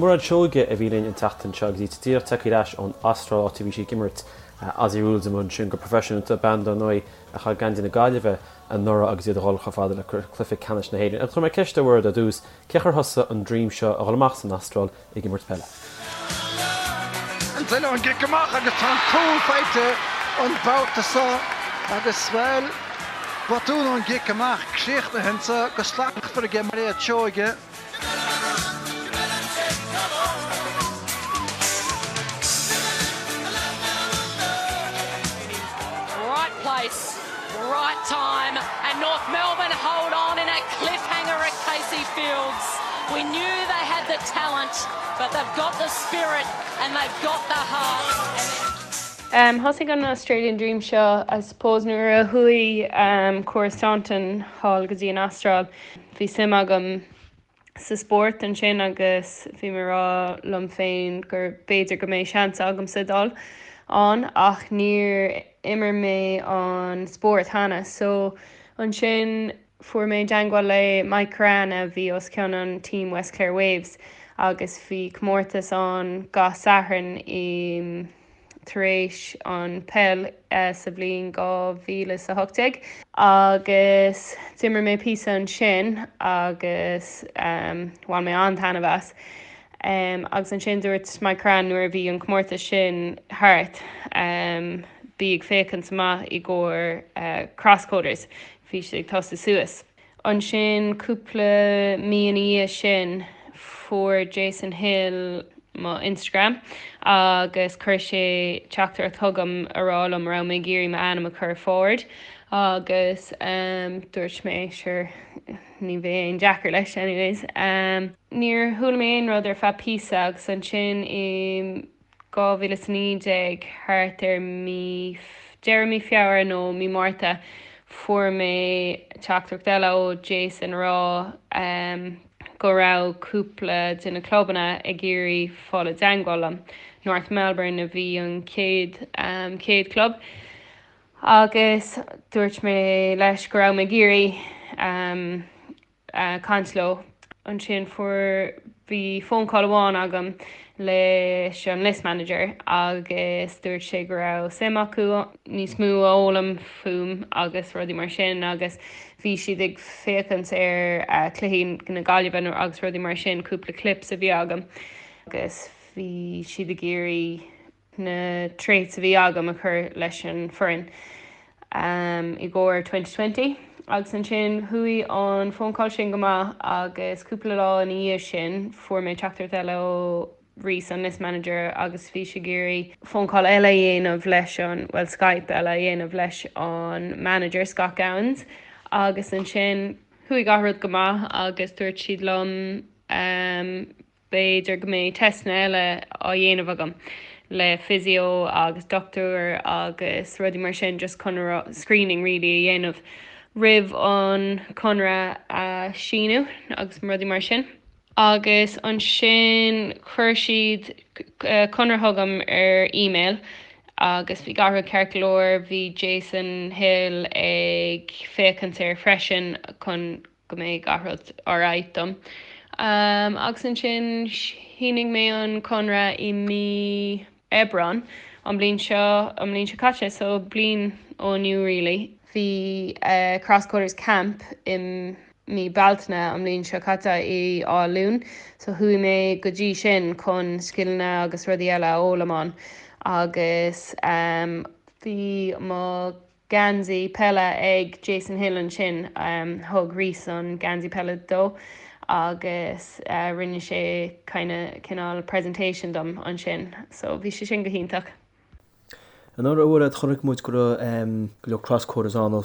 Mairéad Seoige a bhí linn an tseachtain seo agus í díreach tagtha ar ais ón Astráil áit a bhí sí ag imirt Aussie Rules amuigh ansin go proifisiúnta, bean dar ndóigh a chaith geansaí na Gaillimhe anuraidh agus iad a dhul chomh fada le cluiche ceannais na hÉireann. Agus chuir mé ceist ar Mhairéad ar dtús, cé a chuir thusa an dream seo a dhul amach san Astráil ag imirt peile? An duine ón gcic amach agus tá an cúl faighte an babhta seo agus, bhuel, botún ón gcic amach críochnaithe anseo go slachtmhar aige Mairéad Seoige. Right place, right time and North Melbourne hold on in a cliffhanger at Casey Fields. We knew they had the talent, but they've got the spirit and they've got the heart. Um, thosaigh an Australian Dream seo, I suppose, nuair a chuaigh um, Cora Staunton thall go dtí an Astráil. Bhí suim agam sa spórt ansin agus bhí mé ag rá liom féin gur b'fhéidir go mbeidh seans agamsa dul ann ach níor imir mé an spórt cheana so ansin fuair mé i dteangmháil le Mike Currane a bhí os cionn an team West Clare Waves agus bhí comórtas ann gach Satharn i tar éis an peil sa bhliain 2018 agus d'imir mé píosa ansin agus bhain mé an-taitneamh as. Agus ansin dúirt Mike Currane nuair a bhí an comórtas sin thart, bí ag féachaint amach i gcomhair Crosscoders, bhí siad ag tosú suas. Ansin, cúpla mí ina dhiaidh sin, fuair Jason Hill mo Instagram agus chuir sé teachtaireacht chugam a rá liom raibh mé ag iarraidh m'ainm a chur forward agus dúirt mé sure ní bheidh aon deacair leis anyways. Níor chuala mé aon rud ar feadh píosa agus ansin i 2019, thart ar mí, deireadh mí Feabhra nó mí Márta, fuair mé teachtaireacht eile ó Jason a rá go raibh cúpla de na clubanna ag iarraidh fáil i dteangmháil liom. North Melbourne a bhí an chéad, chéad club agus dúirt mé leis go raibh mé ag iarraidh caint leo. Ansin fuair, bhí phone call amháin agam leis an list manager agus dúirt sé go raibh suim acu níos mó a fhoghlaim fúm agus rudaí mar sin agus bhí siad ag féachaint ar cluichí na Gaillimhe agus rudaí mar sin, cúpla clips a bhí agam agus bhí siad ag iarraidh na traits a bhí agam a chur leis an foireann i gcomhair 2020 agus ansin chuaigh an phone call sin go maith agus cúpla lá ina dhiaidh sin fuair mé teachtaireacht eile ó Rhys an list manager agus bhí sé ag iarraidh phone call eile a dhéanamh leis an, bhuel Skype eile a dhéanamh leis an manager Scott Gowans agus ansin chuaigh gach rud go maith agus dúirt siad liom B'fhéidir go mbeidh teisteanna eile á dhéanamh agam le physio agus dochtúir agus rudaí mar sin just chun screening really a dhéanamh roimh an conradh a síniú agus rudaí mar sin. Agus ansin chuir siad conradh chugam ar email agus bhí gach rud ceart go leor, bhí Jason Hill ag féachaint air freisin chun go mbeidh gach rud alright dom. Agus ansin shínigh mé an conradh i mí Aibreán an bliain seo, an bliain seo caite, so bliain ó inniu really. Bhí Crosscoders Camp i mí Bealtaine an bliain seo caite i Áth Luain, so chuaigh mé go dtí sin chun scileanna agus rudaí eile a fhoghlaim ann agus bhí mo geansaí peile ag Jason Hill ansin. Thug Rhys an geansaí peile dó agus rinne sé kinda cineál presentation dom ansin. So bhí sé sin go hiontach. Anuraidh a Mhairéad, chonaic muid go raibh go leor crosscoders ann ó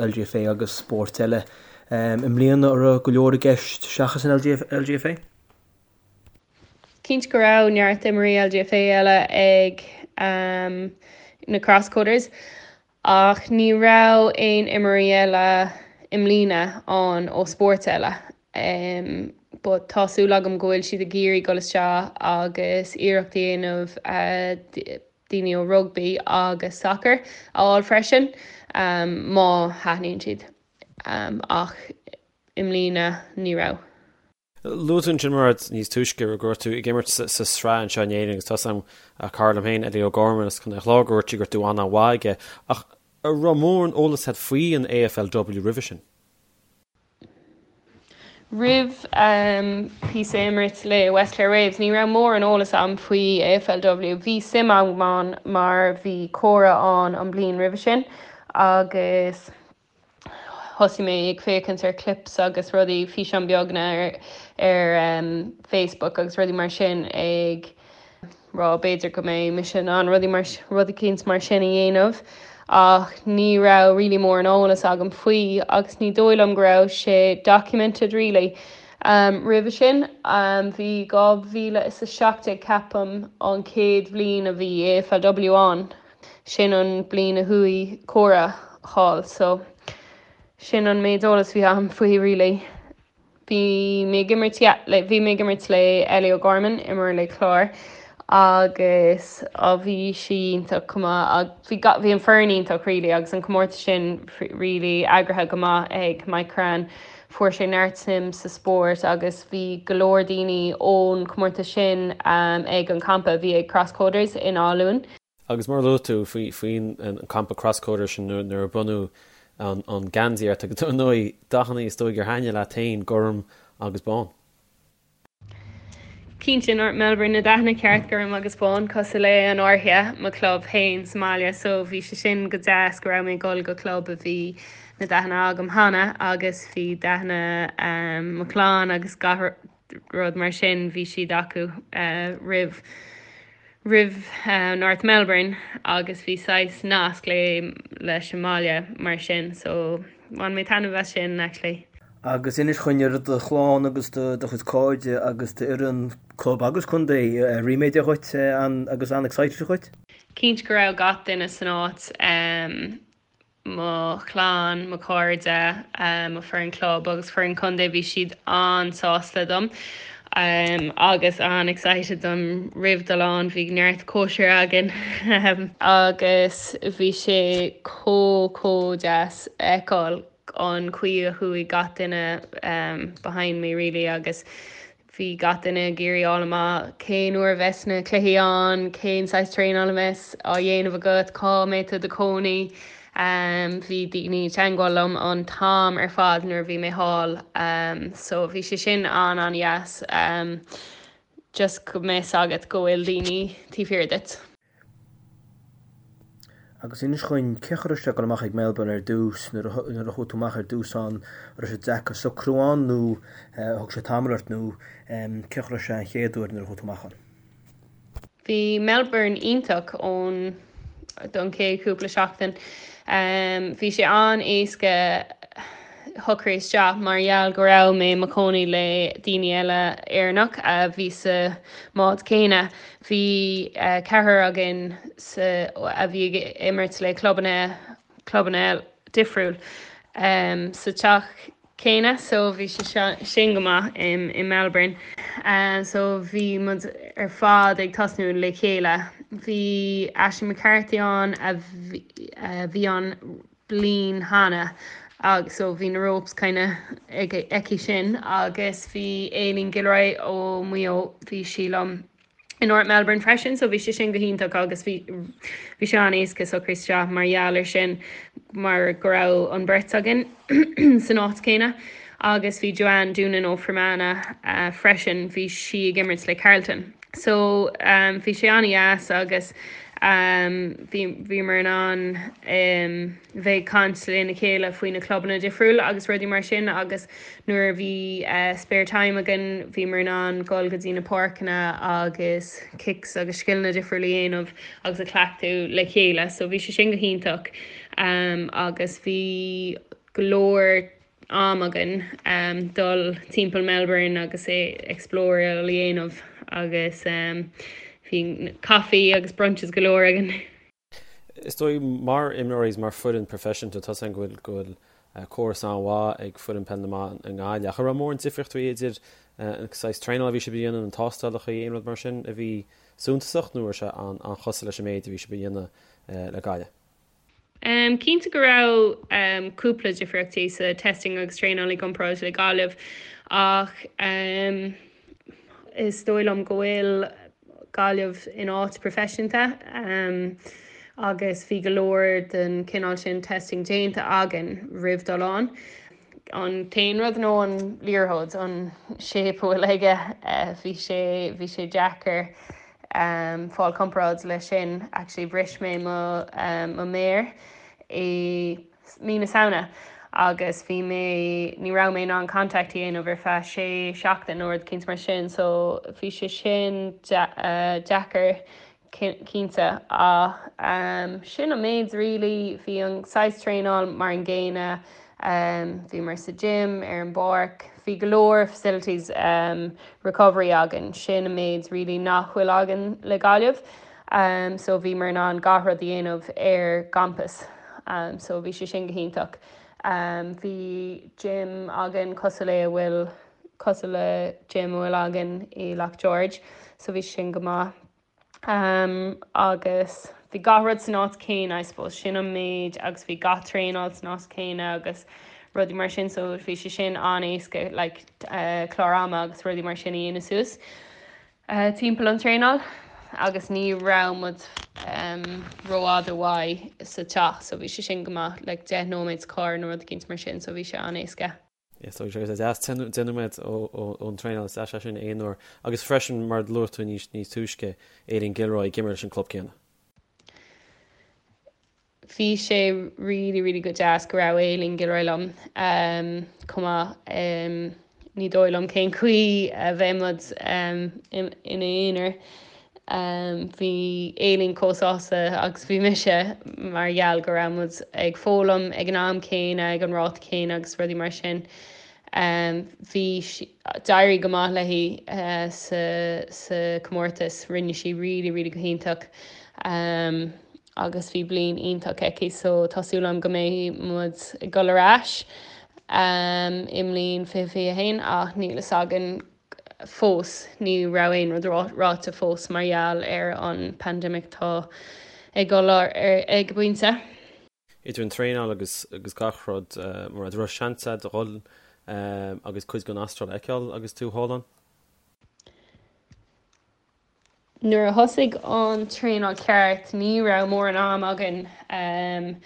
LGFA agus spóirt eile. I mbliana an raibh go leor i gceist seachas an LGFA? Cinnte go raibh neart imreoirí LGFA eile ag na Crosscoders ach ní raibh aon imreoirí eile i mbliana ann ó spóirt eile. But tá súil agam go bhfuil siad ag iarraidh dul isteach agus iarracht a dhéanamh daoine ó rugbaí agus sacar a fháil freisin má thaitníonn siad. Ach i mbliana ní raibh. Luaigh tú ansin Mairéad níos túisce go raibh tú ag imirt sa sraith anseo in Éirinn agus tá a fhios agam cara liom féin, Eddie O'Gorman as Contae an Chláir, go ndúirt sí go raibh tú an-mhaith aige. Ach an raibh mórán eolas agat faoi an AFLW roimhe sin? Roimh píosa a imirt le West Clare Waves ní raibh mórán eolas agam faoi AFLW. Bhí suim agam ann mar bhí Cora ann an bliain roimhe sin agus thosaigh mé ag féachaint ar clips agus rudaí, físeáin beagna ar ar Facebook agus rudaí mar sin ag rá b'fhéidir go mbeidh mise in ann rudaí mar rud eicínt mar sin a dhéanamh ach ní raibh really mórán eolas agam faoi agus ní dóigh liom go raibh sé documented really roimhe sin. Bhí 2017 ceapaim an chéad bhliain a bhí AFLW ann. Sin an bliain a chuaigh Cora thall so sin an méid eolas bhí agam faoi really. Bhí mé ag imirt yeah le bhí mé ag imirt le Ellie O'Gorman imreoir le Clár agus á bhí sí iontach chomh maith ag bhí ga bhí an foireann iontach really agus an comórtas sin really eagraithe go maith ag Mike Currane. Fuair sé neart suim sa spórt agus bhí go leor daoine ón comórtas sin ag an campa a bhí ag Crosscoders in Áth Luain. Agus mar a luaigh tú faoin an campa Crosscoders sin nuair a bronnadh an geansaí ort agus ar ndóigh dathanna is dóigh gur thaitnigh leat féin, gorm agus bán. Cinnte, North Melbourne, na dathanna ceart, gorm agus bán, cosúil le an Fhairche, mo club féin sa mbaile, so bhí sé sin go deas go raibh mé ag dul go club a bhí na dathanna agam cheana agus bhí dathanna mo chlann agus gach rud mar sin, bhí siad acu roimh roimh North Melbourne agus bhí saghas nasc le leis an mbaile mar sin so bhain mé taitneamh as sin actually. Agus inis dhúinn an raibh do chlann agus do chuid cairde agus d'fhoireann club agus contae ríméadach dhuit agus an-excited dhuit? Cinnte go raibh gach duine san áit, mo chlann, mo chairde, mo foireann club agus foireann contae, bhí siad an-sásta dom agus an-excited dom roimh dul ann, bhí neart cóisir againn agus bhí sé chomh chomh deas a fheiceáil an chaoi a chuaigh gach duine behind me really agus bhí gach duine ag iarraidh fháil amach cén uair a bheas na cluichí ann, cén saghas traenáil a bheas á dhéanamh agat, cá mbeidh tú i do chónaí. Bhí daoine i dteangmháil liom an t-am ar fad nuair a bhí mé thall so bhí sé sin an-an-dheas just go mbeidh 's agat go bhfuil daoine taobh thiar duit. Agus inis dhúinn, cén chaoi a raibh sé ag dul amach ag Melbourne ar dtús, nuair a nuair a chuaigh tú amach ar dtús ann, an raibh sé deacair socrú ann nó thug sé tamall ort nó cén chaoi a raibh sé an chéad uair nuair a chuaigh tú amach ann? Bhí Melbourne iontach ón don chéad chúpla seachtain. Bhí sé an-éasca shocrú isteach mar gheall go raibh mé i mo chónaí le daoine eile Éireannach a bhí sa mbád céanna. Bhí ceathrar againn sa a bhí ag imirt le clubanna clubanna difriúil sa teach céanna so bhí sé sin go maith i Melbourne. So bhí muid ar fad ag tosnú le chéile. Bhí Ashley McCarthy ann a bhí ann bliain cheana agus so bhí na ropes kind of aici sin agus bhí Aileen Gilroy ó Maigh Eo bhí sí liom i North Melbourne freisin so bhí sé sin go hiontach agus bhí bhí sé an-éasca socrú isteach mar gheall ar sin mar go raibh an bheirt againn san áit céanna agus bhí Joanne Doonan ó Fermanagh uh, freisin bhí sí ag imirt le Carlton. So um, bhí sé an-dheas agus um, bhí bhíomar in ann um, bheith ag caint lena chéile faoi na clubanna difriúil agus rudaí mar sin agus nuair a bhí uh, spare time againn bhíomar in ann dul go dtí na páirceanna agus kicks agus scileanna difriúil a dhéanamh agus a chleachtadh le chéile. So bhí sé sin go hiontach um, agus bhí go leor am againn dul timpeall Melbourne agus explore a dhéanamh agus bhí coffee agus brunches go leor againn. Is dóigh mar imreoirí is mar foireann proifisiúnta tá 's agam go bhfuil go bhfuil córas an-mhaith ag foireann peil na mban i nGaillimh. Ach an raibh mórán difríochtaí idir an saghas traenála a bhí sibh a dhéanamh, na tástálacha, aon rud mar sin a bhí suntasach nó raibh sé an-chosúil leis an méid a bhí sibh a dhéanamh le Gaillimh? Cinnte go raibh cúpla difríochtaí sa testing agus traenáil i gcomparáid le Gaillimh. Ach is dóigh liom go bhfuil Gaillimh in áit proifisiúnta agus bhí go leor den chineál sin testing déanta againn roimh dul ann. An t-aon rud nó an liathróid, an shape a bhfuil aige, bhí sé, bhí sé deacair fáil comparáid leis sin. Actually bhris mé mo, mo méar i mí na Samhna agus bhí mé, ní raibh mé in ann contact a dhéanamh ar feadh sé seachtain nó rud eicínt mar sin so bhí sé sin deacair cinnte ach sin an méid really, bhí an saghas traenáil mar an gcéanna, bhíomar sa gym, ar an bpáirc, bhí go leor facilities recovery againn, sin an méid really nach bhfuil againn le Gaillimh. So bhíomar in ann gach rud a dhéanamh ar gcampas. So bhí sé sin go hiontach. Bhí gym againn cosúil le a bhfuil, cosúil le gym a bhfuil againn i Loch George. So bhí sé sin go maith. Agus bhí gach rud san áit céanna I suppose, sin an méid agus bhí gach traenáil san áit céanna agus rudaí mar sin so bhí sé sin an-éasca like clár ama agus rudaí mar sin a dhéanamh suas. timpeall an traenáil agus ní raibh muid rófhada uaidh sa teach so bhí sé sin go maith like 10 nóiméad sa carr nó rud eicínt mar sin so bhí sé an-éasca. Yes, so sé deas 10 nóiméad ón traenáil is deas é sin aon uair agus freisin mar a luaigh tú níos níos túisce Aileen Gilroy ag imirt leis an club céanna. Bhí sé really really go deas go raibh Aileen Gilroy liom chomh maith. Ní dóigh liom cén chaoi a bheadh muid ina aonar. Bhí Aileen chomh sásta agus bhí mise mar gheall go raibh muid ag foghlaim ag an am céanna, ag an ráta céanna agus rudaí mar sin. Bhí, d'éirigh go maith léi sa comórtas, rinne sí really really go hiontach. agus bhí bliain iontach aici so tá súil agam go mbeidh muid ag dul ar ais i mbliain 2021 ach níl fhios againn fós, ní raibh aon rud ráite fós mar gheall ar an pandemic atá ag dul ar ag an bpointe. Idir an traenáil agus agus gach rud, mar an raibh seans agat a dhul agus cuid den Astráil a fheiceáil agus tú thall ann? Nuair a thosaigh an traenáil ceart ní raibh mórán am againn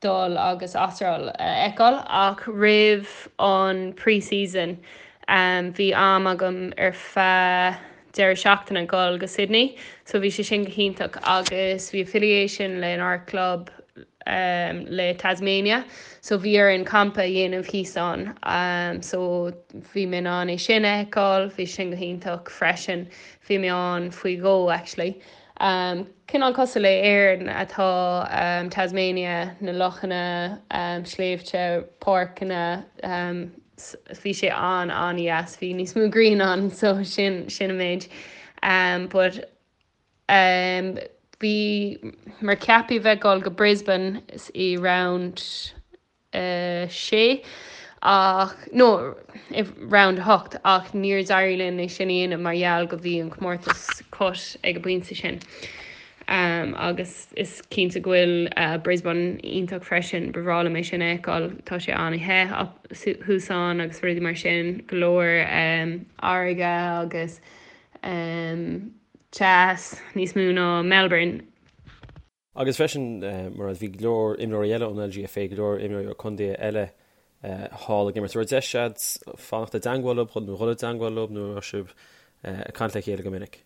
dul agus Astráil a fheiceáil ach roimh an pre-season bhí am agam ar feadh deireadh seachtaine dul go Sydney so bhí sé sin go hiontach agus bhí affiliation lenár club le Tasmania so bhí orainn campa a dhéanamh thíos ann so bhí mé in ann é sin a fheiceáil, bhí sin go hiontach freisin. Bhí mé ann faoi dhó actually. Cineál cosúil le Éirinn atá Tasmania, na lochanna, sléibhte, páirceanna, bhí sé an an-dheas, bhí níos mó grian ann so sin sin an méid. But bhíomar ceaptha bheith ag dul go Brisbane i round 6 ach, nó i round 8 ach níor d'éirigh linn é sin a dhéanamh mar gheall go bhí an comórtas cut ag an bpointe sin. Agus is cinnte go bhfuil Brisbane iontach freisin, ba bhreá liom é sin a fheiceáil, tá sé an-the thuas ann agus rudaí mar sin, go leor farraige agus teas níos mó ná Melbourne. Agus freisin, mar bhí go leor imreoirí eile ón LGFA, go leor imreoirí ó contaetha eile thall ag imirt. An raibh deis agat fanacht i dteangmháil leo nó dhul i dteangmháil leo nó an raibh sibh ag caint le chéile go minic?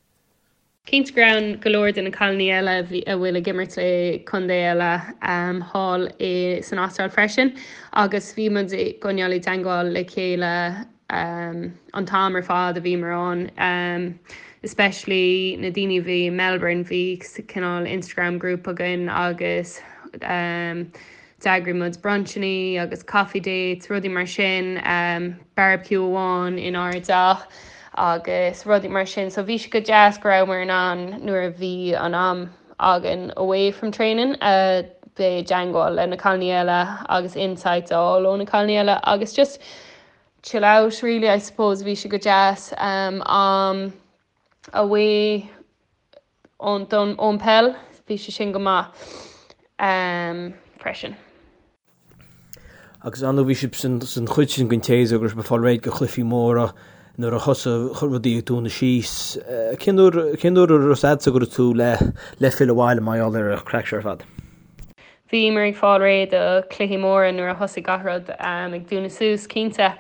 Cinnte go raibh go leor de na cailíní eile a bhfuil ag imirt le contae eile thall san Astráil freisin agus bhí muid ag coinneáil i dteangmháil le chéile an t-am ar fad a bhíomar ann, especially na daoine a bhí i Melbourne, bhí cineál Instagram group againn agus d'eagraigh muid brunchannaí agus coffee dates, rudaí mar sin, barbecue amháin inár dteach agus rudaí mar sin. So bhí sé go deas go rabhamar in ann nuair a bhí an am againn away from training a bheith i dteangmháil le na cailíní eile agus insights a fháil ó na cailíní eile agus just chill out really I suppose bhí sé go deas am away ón don ón peil bhí sé sin go maith freisin. Agus ar ndóigh bhí sibh san chuid sin den tséasúr go raibh sibh ag fáil réidh do chluichí móra nuair a thosaigh rudaí ag dúnadh síos. Cén uair cén uair a raibh fhios a'dsa go raibh tú le le filleadh abhaile mar gheall ar an chraic seo ar fad? Bhíomar ag fáil réidh do chluichí móra nuair a thosaigh gach rud ag dúnadh suas, cinnte.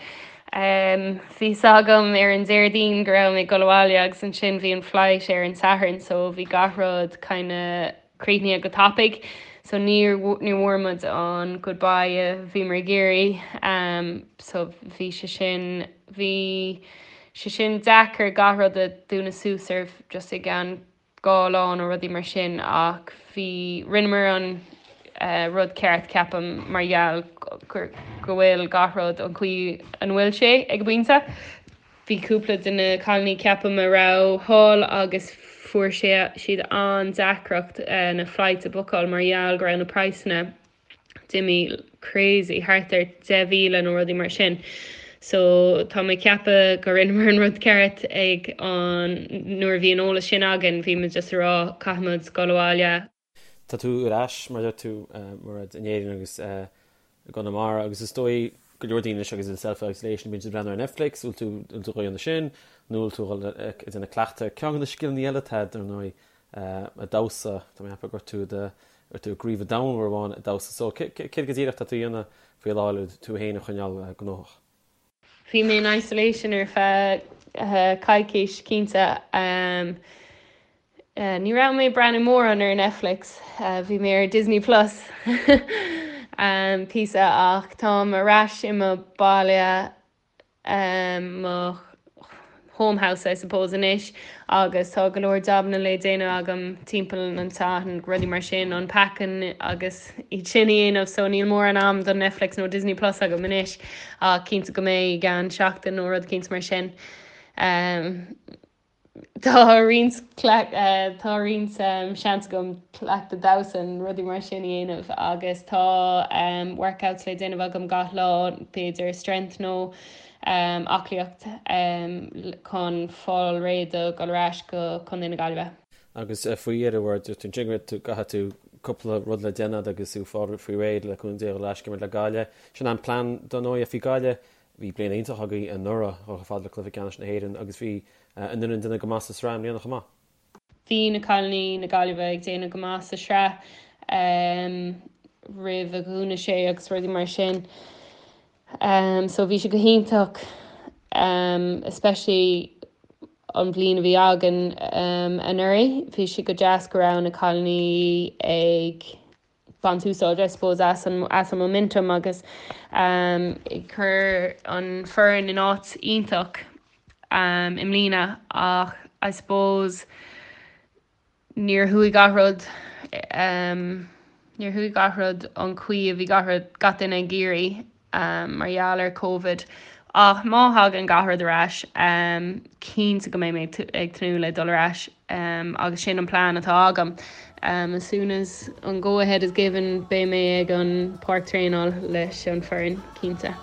Bhí fhios agam ar an Déardaoin go raibh mé ag dul abhaile agus ansin bhí an flight ar an Satharn so bhí gach rud kinda críochnaithe go tapaidh so níor níor bhfuair muid an goodbye a bhíomar ag iarraidh so bhí sé sin bhí sé sin deacair gach rud a dúnadh suas ar just i gceann 2 lá nó rudaí mar sin ach bhí rinneamar an rud ceart ceapaim mar gheall go bhfuil gach rud an chaoi an bhfuil sé ag an bpointe. Bhí cúpla de na cailíní ceapaim a raibh thall agus fuair siad an-deacracht na flights a bookáil mar gheall go raibh na praghsanna d'imigh crazy thart ar 10,000 nó rudaí mar sin. So tá mé ag ceapadh go rinneamar an rud ceart ag an nuair a bhí an eolas sin againn bhí muid just ag rá caithfimid dul abhaile. Tá tú ar ais, mar a deir tú, Mairéad, in Éirinn agus i gConamara agus is dóigh go leor daoine anois agus iad i self-isolation, bíonn siad ag breathnú ar Netflix, bhfuil tú, bhfuil tú ag déanamh sin nó bhfuil tú ag dul ag déanamh cleachtadh. Ceann de na scileanna eile atá agat, ar ndóigh, ag damhsa, tá mé ag ceapadh go raibh tú i do, raibh tú i gcraobh an domhain uair amháin ag damhsa. So, céard go díreach atá tú a dhéanamh faoi láthair le tú féin a choinneáil gnóthach? Bhí mé in isolation ar feadh coicís cinnte. Ní raibh mé ag breathnú mórán ar Netflix, bhí mé ar Disney Plus píosa ach táim ar ais i mo baile, mo home house I suppose anois agus tá go leor jabanna le déanamh agam timpeall an teach and rudaí mar sin, unpacking agus iad sin a dhéanamh so níl mórán am don Netflix nó Disney Plus agam anois ach cinnte go mbeidh i gceann seachtain nó rud cinnte mar sin. Tá roinnt tá roinnt seans agam cleachtadh damhsa and rudaí mar sin a dhéanamh agus tá workouts le déanamh agam gach lá, b'fhéidir strength nó aclaíocht chun fáil réidh do dhul ar ais go Contae na Gaillimhe. Agus faoi dheireadh, a dúirt tú ansin go raibh tú, caithfidh tú cúpla rud le déanamh agus tú fáil faoi réidh le cúnamh Dé dhul ar ais ag imirt le Gaillimh. Sin an plean dar ndóigh faoi Gaillimh. Bhí bliain iontach agaibh anuraidh, dhul chomh fada le cluiche ceannais na hÉireann agus bhí an fhoireann ag déanamh go maith sa sraith i mbliana chomh maith. Bhí na cailíní na Gaillimhe ag déanamh go maith sa sraith roimh a dhúnadh sé agus rudaí mar sin. So bhí sé go hiontach especially an bhliain a bhí againn anuraidh. Bhí sé go deas go raibh na cailíní ag baint úsáid I suppose as an as an momentum agus ag cur an foireann in áit iontach i mbliana ach I suppose níor chuaigh gach rud níor chuaigh gach rud an chaoi a bhí gach rud gach duine ag iarraidh. mar gheall ar Covid ach má thagann gach rud ar ais cinnte go mbeidh mé ag tnúth le dul ar ais agus sin an plean atá agam. As soon as an go ahead is given beidh mé ag an páirc traenáil leis an foireann cinnte.